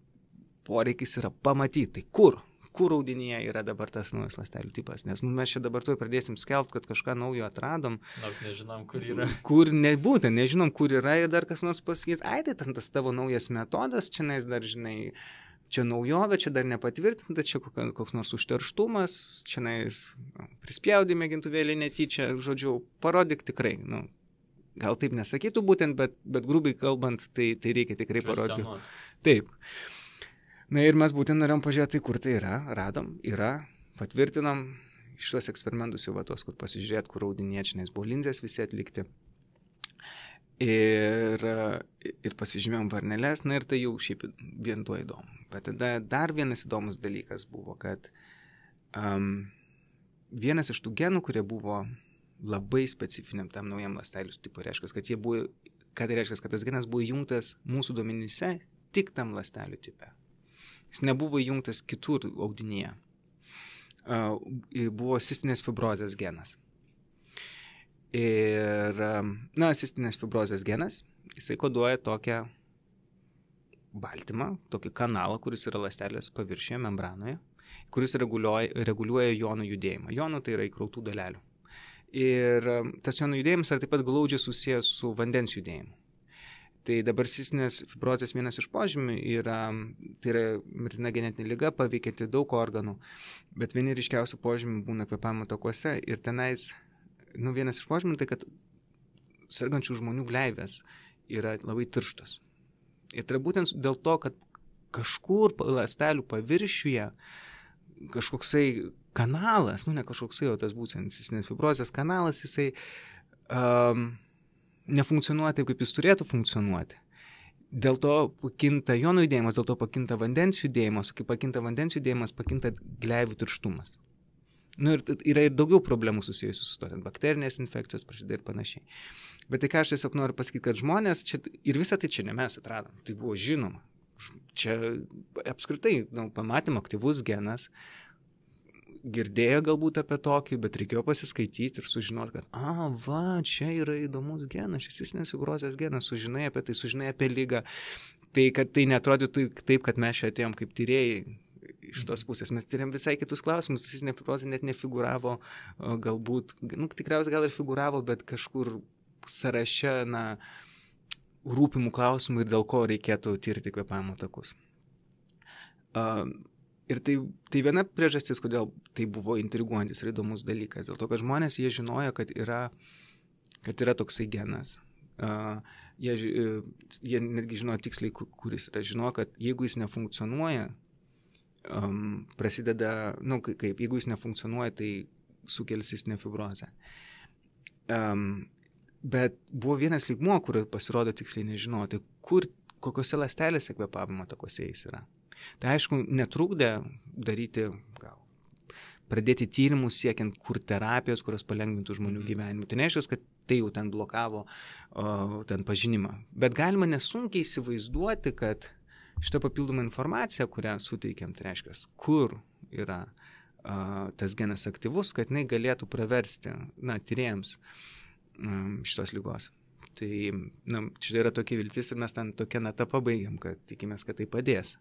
S2: poreikis yra pamatyti, tai kur audinyje yra dabar tas naujas ląstelių tipas. Nes mes čia dabar tuoj pradėsim skelbti, kad kažką naujo atradom.
S1: Nors nežinom, kur yra.
S2: Kur nebūtent, nežinom, kur yra ir dar kas nors pasakys, tai tas tavo naujas metodas, čia dar, žinai, čia naujovė, čia dar nepatvirtinta, čia koks nors užterštumas, čia prispjaudė mėgintuvėlį netyčia, žodžiu, parodyk tikrai. Gal taip nesakytų būtent, bet grubiai kalbant, tai reikia tikrai parodyti. Taip. Na ir mes būtent norėjom pažiūrėti, kur tai yra, radom, patvirtinom iš tuos eksperimentus jau tos, kur pasižiūrėt, kur audiniečiais buvo linzės visi atlikti. Ir pasižymėjom varneles, ir tai jau šiaip vien tuo įdomu. Bet tada dar vienas įdomus dalykas buvo, kad vienas iš tų genų, kurie buvo labai specifiniam tam naujam ląstelių tipui, reiškia, kad tas genas buvo įjungtas mūsų duomenyse tik tam ląstelių tipe. Jis nebuvo įjungtas kitur audinyje. Buvo cistinės fibrozės genas. Ir, cistinės fibrozės genas, jisai koduoja tokią baltymą, tokį kanalą, kuris yra ląstelės paviršiuje, membranoje, kuris reguliuoja jonų judėjimą. Jonų tai yra įkrautų dalelių. Ir tas jonų judėjimas yra taip pat glaudžiai susijęs su vandens judėjimu. Tai dabar cistinės fibrozės vienas iš požymių tai yra mirtina genetinė liga, paveikianti daug organų, bet vieni ryškiausių požymių būna kvėpavimo takuose ir tenais, vienas iš požymių tai, kad sergančių žmonių gleivės yra labai tirštos. Ir tai būtent dėl to, kad kažkur ląstelių paviršiuje kažkoksai kanalas, ne kažkoksai, o tas būtent cistinės fibrozės kanalas, jisai nefunkcionuoja taip, kaip jis turėtų funkcionuoti. Dėl to pakinta jonų judėjimas, dėl to pakinta vandens judėjimas, o kai pakinta vandens judėjimas, pakinta gleivių tirštumas. Ir yra ir daugiau problemų susijusių su to, bakterinės infekcijos prasideda ir panašiai. Bet tai ką aš tiesiog noriu pasakyti, kad žmonės čia, ir visą tai čia ne mes atradom, tai buvo žinoma. Čia apskritai, pamatėm aktyvus genas, girdėjo galbūt apie tokį, bet reikėjo pasiskaityti ir sužinoti, kad čia yra įdomus genas, šis cistinės fibrozės genas, sužinai apie tai, sužinai apie ligą. Tai, kad tai neatrodytų taip, kad mes čia atėjom kaip tyrėjai iš tos pusės. Mes tyrėm visai kitus klausimus, cistinė fibrozė net nefiguravo, galbūt, tikriausiai gal ir figuravo, bet kažkur sąraše, rūpimų klausimų ir dėl ko reikėtų tirti kvėpavimo takus. Ir tai viena priežastis, kodėl tai buvo intriguojantis ir įdomus dalykas. Dėl to, kad žmonės, jie žinojo, kad yra toksai genas. Jie netgi žinojo tiksliai, kuris yra. Žinojo, kad jeigu jis nefunkcionuoja, prasideda, jeigu jis nefunkcionuoja, tai sukelia cistinę fibrozę. Bet buvo vienas lygmuo, kur pasirodo tiksliai nežinoti, kokiose ląstelėse kvėpavimo takuose jis yra. Tai aišku, netrukdė pradėti tyrimus siekiant kur terapijos, kurios palengvintų žmonių gyvenimą. Tai neaiškus, kad tai jau ten blokavo ten pažinimą. Bet galima nesunkiai įsivaizduoti, kad šitą papildomą informaciją, kurią suteikėm, tai reiškia, kur yra tas genas aktyvus, kad jinai galėtų praversti tyrėjams šitos lygos. Tai čia yra tokia viltis ir mes ten tokią natą pabaigiam, kad tikimės, kad tai padės.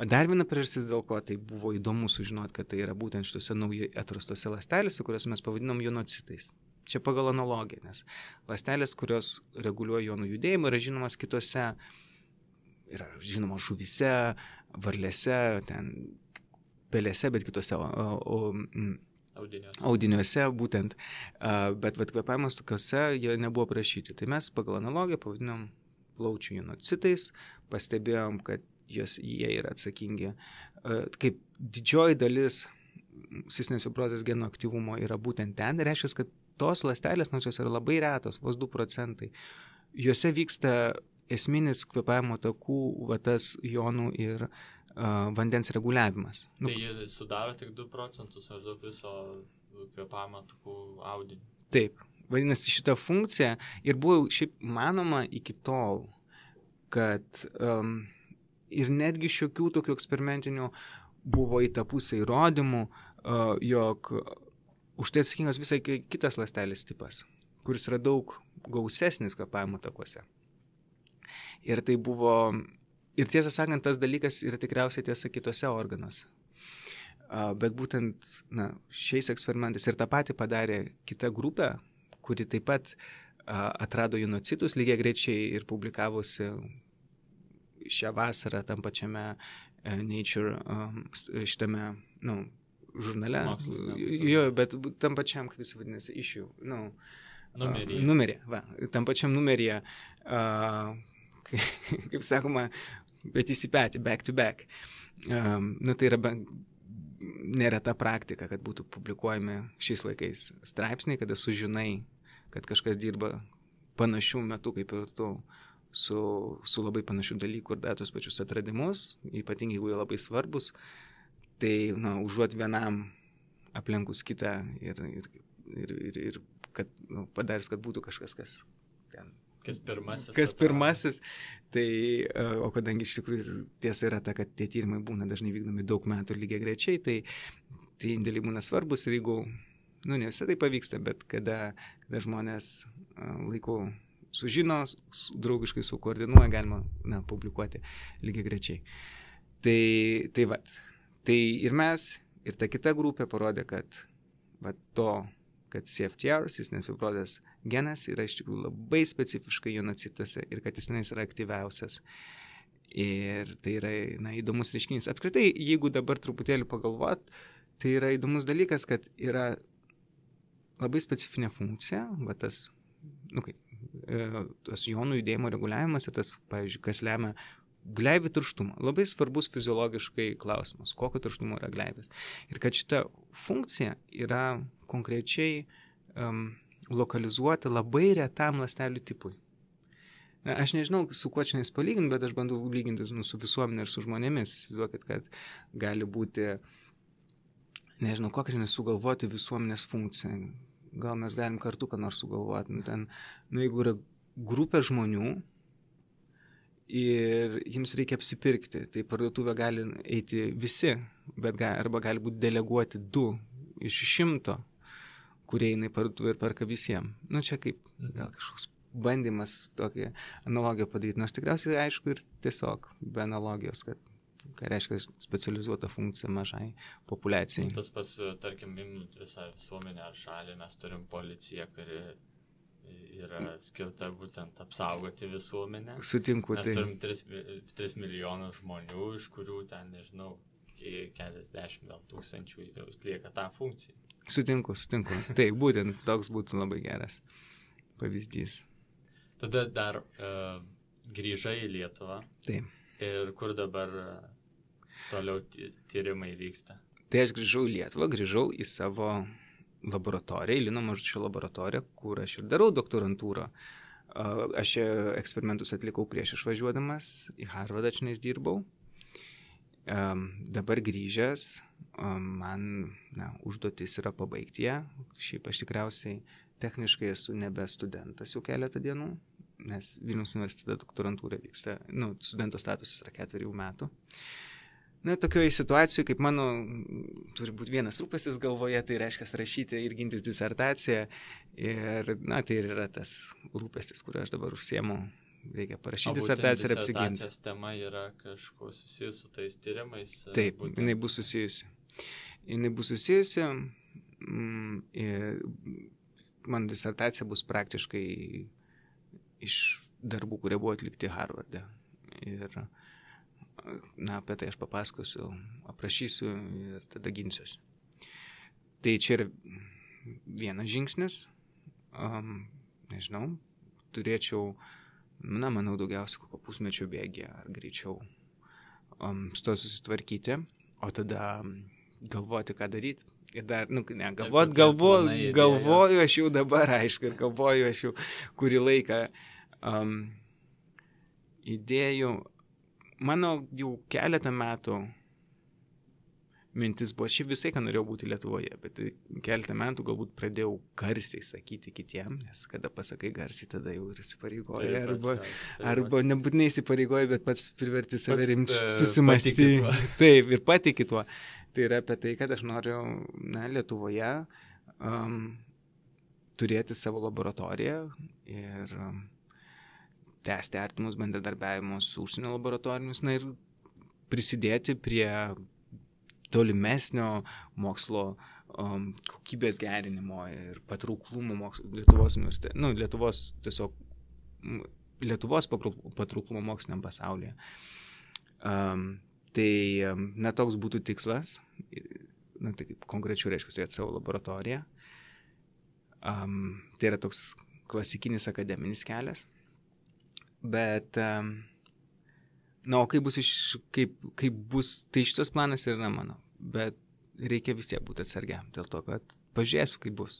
S2: Dar viena priežastis, dėl ko tai buvo įdomu sužinoti, kad tai yra būtent šitose naujai atrastose ląstelėse, kurias mes pavadinom jonocitais. Čia pagal analogiją, nes ląstelės, kurios reguliuoja jonų judėjimą, yra žinomas kitose, yra žinomas žuvyse, varlėse, ten pelėse, bet kitose audiniuose būtent, bet kvėpavimas tokiuose jie nebuvo prašyti. Tai mes pagal analogiją pavadinom plaučių jonocitais, pastebėjom, kad jie yra atsakingi, kaip didžioji dalis cistinės fibrozės geno aktyvumo yra būtent ten, reiškia, kad tos ląstelės, nors jos yra labai retos, vos 2%, juose vyksta esminis kvėpavimo takų, tas jonų ir vandens reguliavimas.
S1: Tai jie sudaro tik 2% maždaug viso kvėpavimo takų audinio.
S2: Taip, vadinasi, šitą funkciją ir buvo šiaip manoma iki tol, kad ir netgi šiokių tokių eksperimentinių buvo į tą pusę įrodymų, jog už tai atsakingas visai kitas ląstelės tipas, kuris yra daug gausesnis kvėpavimo takuose. Ir tai buvo, ir tiesą sakant, tas dalykas yra tikriausiai tiesa kitose organuose. Bet būtent šiais eksperimentais ir tą patį padarė kita grupė, kuri taip pat atrado jonocitus lygiai greičiai ir publikavosi šią vasarą tam pačiame Nature šitame, žurnale. Jo, bet tam pačiam, kaip jis vadinasi, issue. Numeryje. Tam pačiam numeryje, kaip sakoma, bet įsipėti, back to back. Tai yra nėra ta praktika, kad būtų publikuojami šiais laikais straipsniai, kada sužinai, kad kažkas dirba panašių metų kaip ir tu, su labai panašių dalykų ir tos pačius atradimus, ypatingai jeigu jie labai svarbus, tai užuot vienam aplenkus kitą ir kad padarys, kad būtų kažkas, kas pirmasis. Tai, o kadangi iš tikrųjų tiesa yra ta, kad tie tyrimai būna dažnai vykdomi daug metų lygiai grečiai, tai indėliai būna svarbus ir jeigu, ne visai tai pavyksta, bet kada žmonės laiku sužino, draugiškai sukoordinuoja, galima publikuoti lygiai grečiai. Tai ir mes, ir ta kita grupė parodė, kad kad CFTR, cistinės fibrozės genas, yra iš tikrųjų labai specifiškai jonocituose ir kad jis tenais yra aktyviausias. Ir tai yra įdomus reiškinys. Apskritai, jeigu dabar truputėlį pagalvot, tai yra įdomus dalykas, kad yra labai specifinė funkcija, tas jonų judėjimo reguliavimas ir tas, pavyzdžiui, kas lemia gleivių tirštumą. Labai svarbus fiziologiškai klausimas, kokio tirštumo yra gleivės. Ir kad šita funkcija yra konkrečiai lokalizuota labai retam ląstelių tipui. Aš nežinau, su kuo čia palyginti, bet aš bandau lyginti su visuomenė ir su žmonėmis. Įsivaizduokit, kad gali būti, nežinau, kokią nesugalvoti visuomenės funkciją. Gal mes galim kartu ką nors sugalvoti. Jeigu yra grupė žmonių ir jiems reikia apsipirkti, tai parduotuvę gali eiti visi, arba gali būti deleguoti 2 iš 100, kurie eina į parduotuvę ir perka visiems. Čia kaip gal kažkoks bandymas tokią analogiją padaryti. Nors tikriausiai aišku ir tiesiog be analogijos, kad ką reiškia specializuota funkcija mažai populiacijai.
S1: Tas pats, tarkim, imant visą visuomenę ar šalį, mes turim policiją, kuri yra skirta būtent apsaugoti visuomenę.
S2: Sutinku.
S1: Mes turim 3 milijonus žmonių, iš kurių ten, nežinau, keliasdešimt gal tūkstančių atlieka tą funkciją.
S2: Sutinku. Tai būtent toks būtų labai geras pavyzdys.
S1: Tada dar grįžai į Lietuvą.
S2: Taip.
S1: Ir kur dabar toliau tyrimai vyksta?
S2: Tai aš grįžau į Lietuvą, grįžau į savo laboratoriją, Lino Mažučio laboratoriją, kur aš ir darau doktorantūrą. Aš eksperimentus atlikau prieš išvažiuodamas, į Harvardą čionais dirbau. Dabar grįžęs, man užduotis yra pabaigti ją. Šiaip aš tikriausiai techniškai esu nebe studentas jau keletą dienų, nes Vilniaus universitete doktorantūra vyksta, studento statusas yra 4 metų. Na, tokioje situacijoje, kaip mano, turi būti vienas rūpestis galvoje, tai reiškia rašyti ir gintis disertaciją. Ir, na, tai ir yra tas rūpestis, kuriuo aš dabar užsiemu. Reikia parašyti disertaciją ir apsiginti.
S1: Disertacijos tema yra kažkuo susijusi su tais tyrimais?
S2: Taip, jinai bus susijusi. Ir mano disertacija bus praktiškai iš darbų, kurie buvo atlikti Harvarde. Ir na, apie tai aš papasakosiu, aprašysiu ir tada ginsiuosi. Tai čia yra vienas žingsnis, nežinau, turėčiau, na, manau, daugiausiai kokio pusmečio bėgį ar greičiau su to susitvarkyti, o tada galvoti, ką daryti. Ir dar, galvoju aš jau dabar, aišku, ir galvoju aš jau kurį laiką idėjų. Mano jau keletą metų mintis buvo, šiaip visai, ką norėjau būti Lietuvoje, bet keletą metų galbūt pradėjau garsiai sakyti kitiem, nes kada pasakai garsiai, tada jau ir įsipareigoja, arba nebūtinai įsipareigoja, bet pats priverti save rimti susimąstyti. Taip, ir patiki tuo. Tai yra apie tai, kad aš noriu, na, Lietuvoje turėti savo laboratoriją ir tęsti artimus bendradarbiavimus su užsienio laboratorijomis, na ir prisidėti prie tolimesnio mokslo kokybės gerinimo ir patrauklumo Lietuvos patrauklumo moksliniam pasaulyje. Tai, na, toks būtų tikslas, na, tai konkrečiau reiškia turėti savo laboratoriją. Tai yra toks klasikinis akademinis kelias. Bet, na, o kaip bus, tai šitas planas yra mano, bet reikia vis tiek būti atsargiam, dėl to, kad pažiūrėsiu, kaip bus.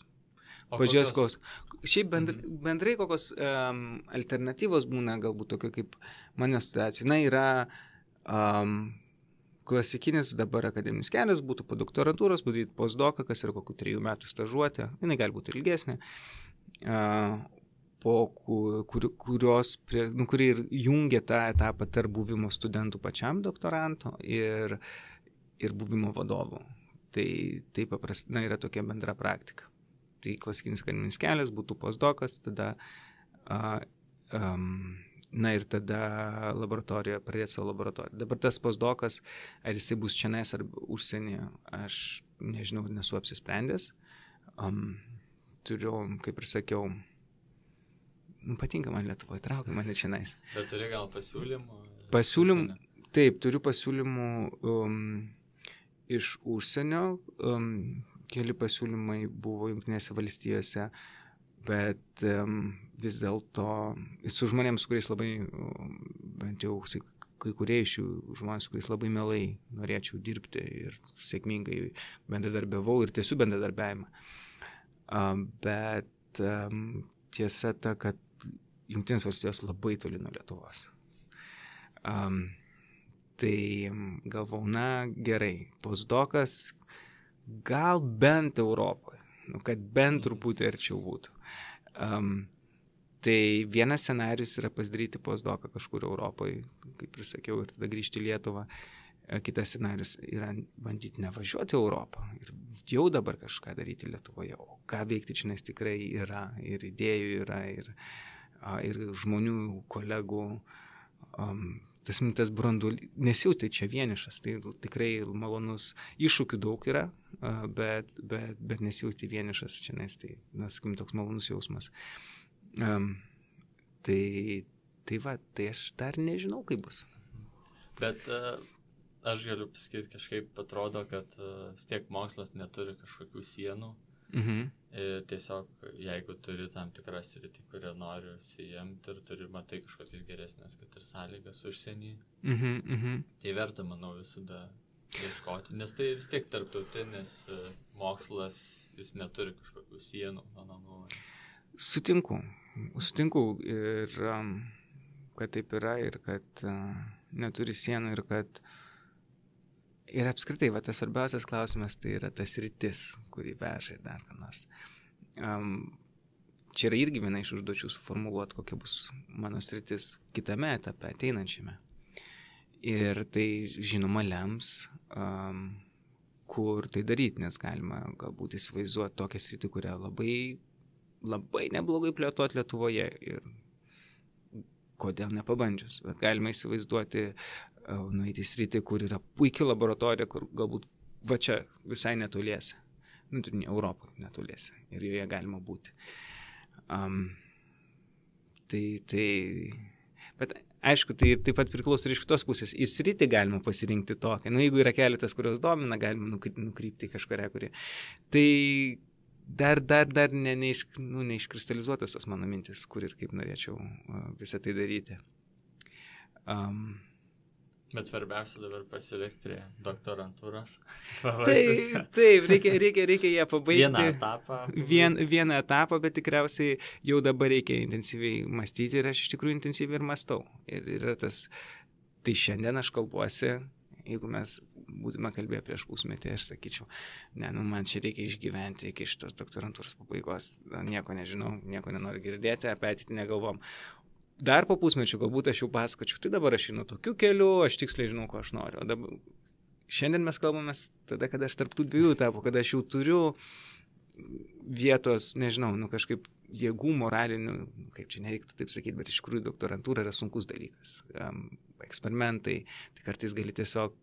S2: Pažiūrėsiu, kokios. Šiaip bendrai kokios alternatyvos būna, galbūt tokio kaip mano situacija. Na, yra klasikinis dabar akademinis kelias, būtų po doktorantūros, padaryti postdoką, kas yra kokių 3 metų stažuotė, jinai gali būti ilgesnė. Kuri ir jungia tą etapą tarp buvimo studentų pačiam doktoranto ir buvimo vadovų. Tai paprastai yra tokia bendra praktika. Tai klasikinis akademinis kelias būtų postdokas, tada, na ir tada laboratorija, pradėti savo laboratoriją. Dabar tas postdokas, ar jisai bus čionais ar užsienyje, aš nežinau, nesu apsisprendęs. Turiu, kaip ir sakiau, patinka man Lietuvoje, traukia mane čionais.
S1: Bet turi gal pasiūlymų?
S2: Pasiūlymų, taip, turiu pasiūlymų iš užsienio. Keli pasiūlymai buvo Jungtinėse valstijose, bet vis dėlto su žmonėms, su kuriais labai, bent jau kai kurie iš jų žmonės, su kuriais labai mielai norėčiau dirbti ir sėkmingai bendradarbiavau ir tiesiu bendradarbiavimą. Bet tiesa ta, kad Jungtinės valstijos labai toli nuo Lietuvos. Tai galvau, na gerai, postdokas gal bent Europoje, kad bent truputį arčiau būtų. Tai vienas scenarius yra pasidaryti postdoką kažkur Europoje, kaip ir sakiau, ir tada grįžti į Lietuvą. Kitas scenarius yra bandyti nevažiuoti Europą ir jau dabar kažką daryti Lietuvoje. O ką veikti čia, nes tikrai yra ir idėjų yra, ir žmonių, kolegų. Tas mintas branduolys, nesijauti čia vienišas, tai tikrai malonus, iššūkių daug yra, bet nesijauti vienišas čia, nes tai, sakykim, toks malonus jausmas. Tai aš dar nežinau, kaip bus.
S1: Bet aš galiu pasakyti, kažkaip atrodo, kad vis tiek mokslas neturi kažkokių sienų. Tiesiog, jeigu turi tam tikrą sritį, kurią nori užsiimti ir matai kažkokias geresnės, kad ir sąlygas užsienį, tai verta, manau, visada ieškoti, nes tai vis tiek tarptautinis mokslas, jis neturi kažkokių sienų, mano nuomonė.
S2: Sutinku ir kad taip yra ir kad neturi sienų ir kad ir apskritai, tas svarbiausias klausimas tai yra tas sritis, kurį veža dar ką nors. Čia yra irgi viena iš užduočių suformuluoti, kokia bus mano sritis kitame etape, ateinančiame. Ir tai žinoma lems, kur tai daryti, nes galima galbūt įsivaizduoti tokią sritį, kurią labai neblogai plėtoti Lietuvoje ir kodėl nepabandžius. Bet galima įsivaizduoti, nueiti į sritį, kur yra puikia laboratorija, kur galbūt va čia visai netoliese. Europoje netoliese. Ir joje galima būti. Bet aišku, tai taip pat priklauso ir iš kitos pusės. Į sritį galima pasirinkti tokią. Jeigu yra keletas, kurios domina, galima nukrypti į kažkurią, kurį. Tai dar neiškristalizuotas tos mano mintis, kur ir kaip norėčiau visą tai daryti.
S1: Bet svarbiausia dabar pasilikti prie doktorantūros.
S2: Taip, reikia ją pabaigti.
S1: Vieną
S2: etapą, bet tikriausiai jau dabar reikia intensyviai mąstyti ir aš iš tikrųjų intensyviai ir mąstau. Ir yra tas, tai šiandien aš kalbuosi, jeigu mes būtume kalbėję prieš pusmetį, aš sakyčiau, man čia reikia išgyventi iki šitos doktorantūros pabaigos, nieko nežinau, nieko nenoriu girdėti, apie ateitį negalvom. Dar po pusmečio galbūt aš jau pasakočiau, tai dabar aš einu tokiu keliu, aš tiksliai žinau, ko aš noriu. O dabar, šiandien mes kalbame tada, kada aš tarp tų dviejų etapų, kada aš jau turiu vietos, nežinau, kažkaip jėgų moralinių, kaip čia nereiktų taip sakyti, bet iš tikrųjų doktorantūra yra sunkus dalykas. Eksperimentai, tai kartais gali tiesiog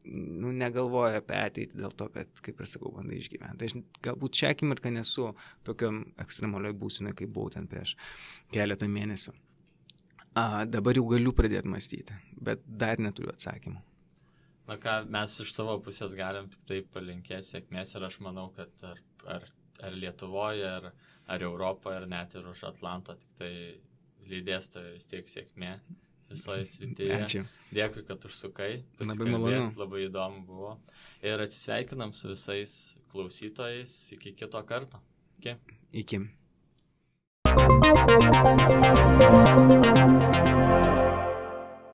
S2: negalvoja apie ateitį dėl to, kad, kaip ir sakau, bandai išgyventi. Aš galbūt šią akimirką nesu tokiam ekstremalioj būsinoje, kaip buvau ten prieš keletą mėnesių. Dabar jau galiu pradėti mąstyti, bet dar neturiu atsakymų.
S1: Na ką, mes iš savo pusės galim tik tai palinkėti sėkmės ir aš manau, kad ar Lietuvoje, ar Europoje, ar net ir už Atlanto, tik tai lydės tai vis tiek sėkmė visoje srityje.
S2: Ačiū.
S1: Dėkui, kad užsukai.
S2: Labai malonu.
S1: Labai įdomu buvo. Ir atsisveikinam su visais klausytojais. Iki kito karto. Iki.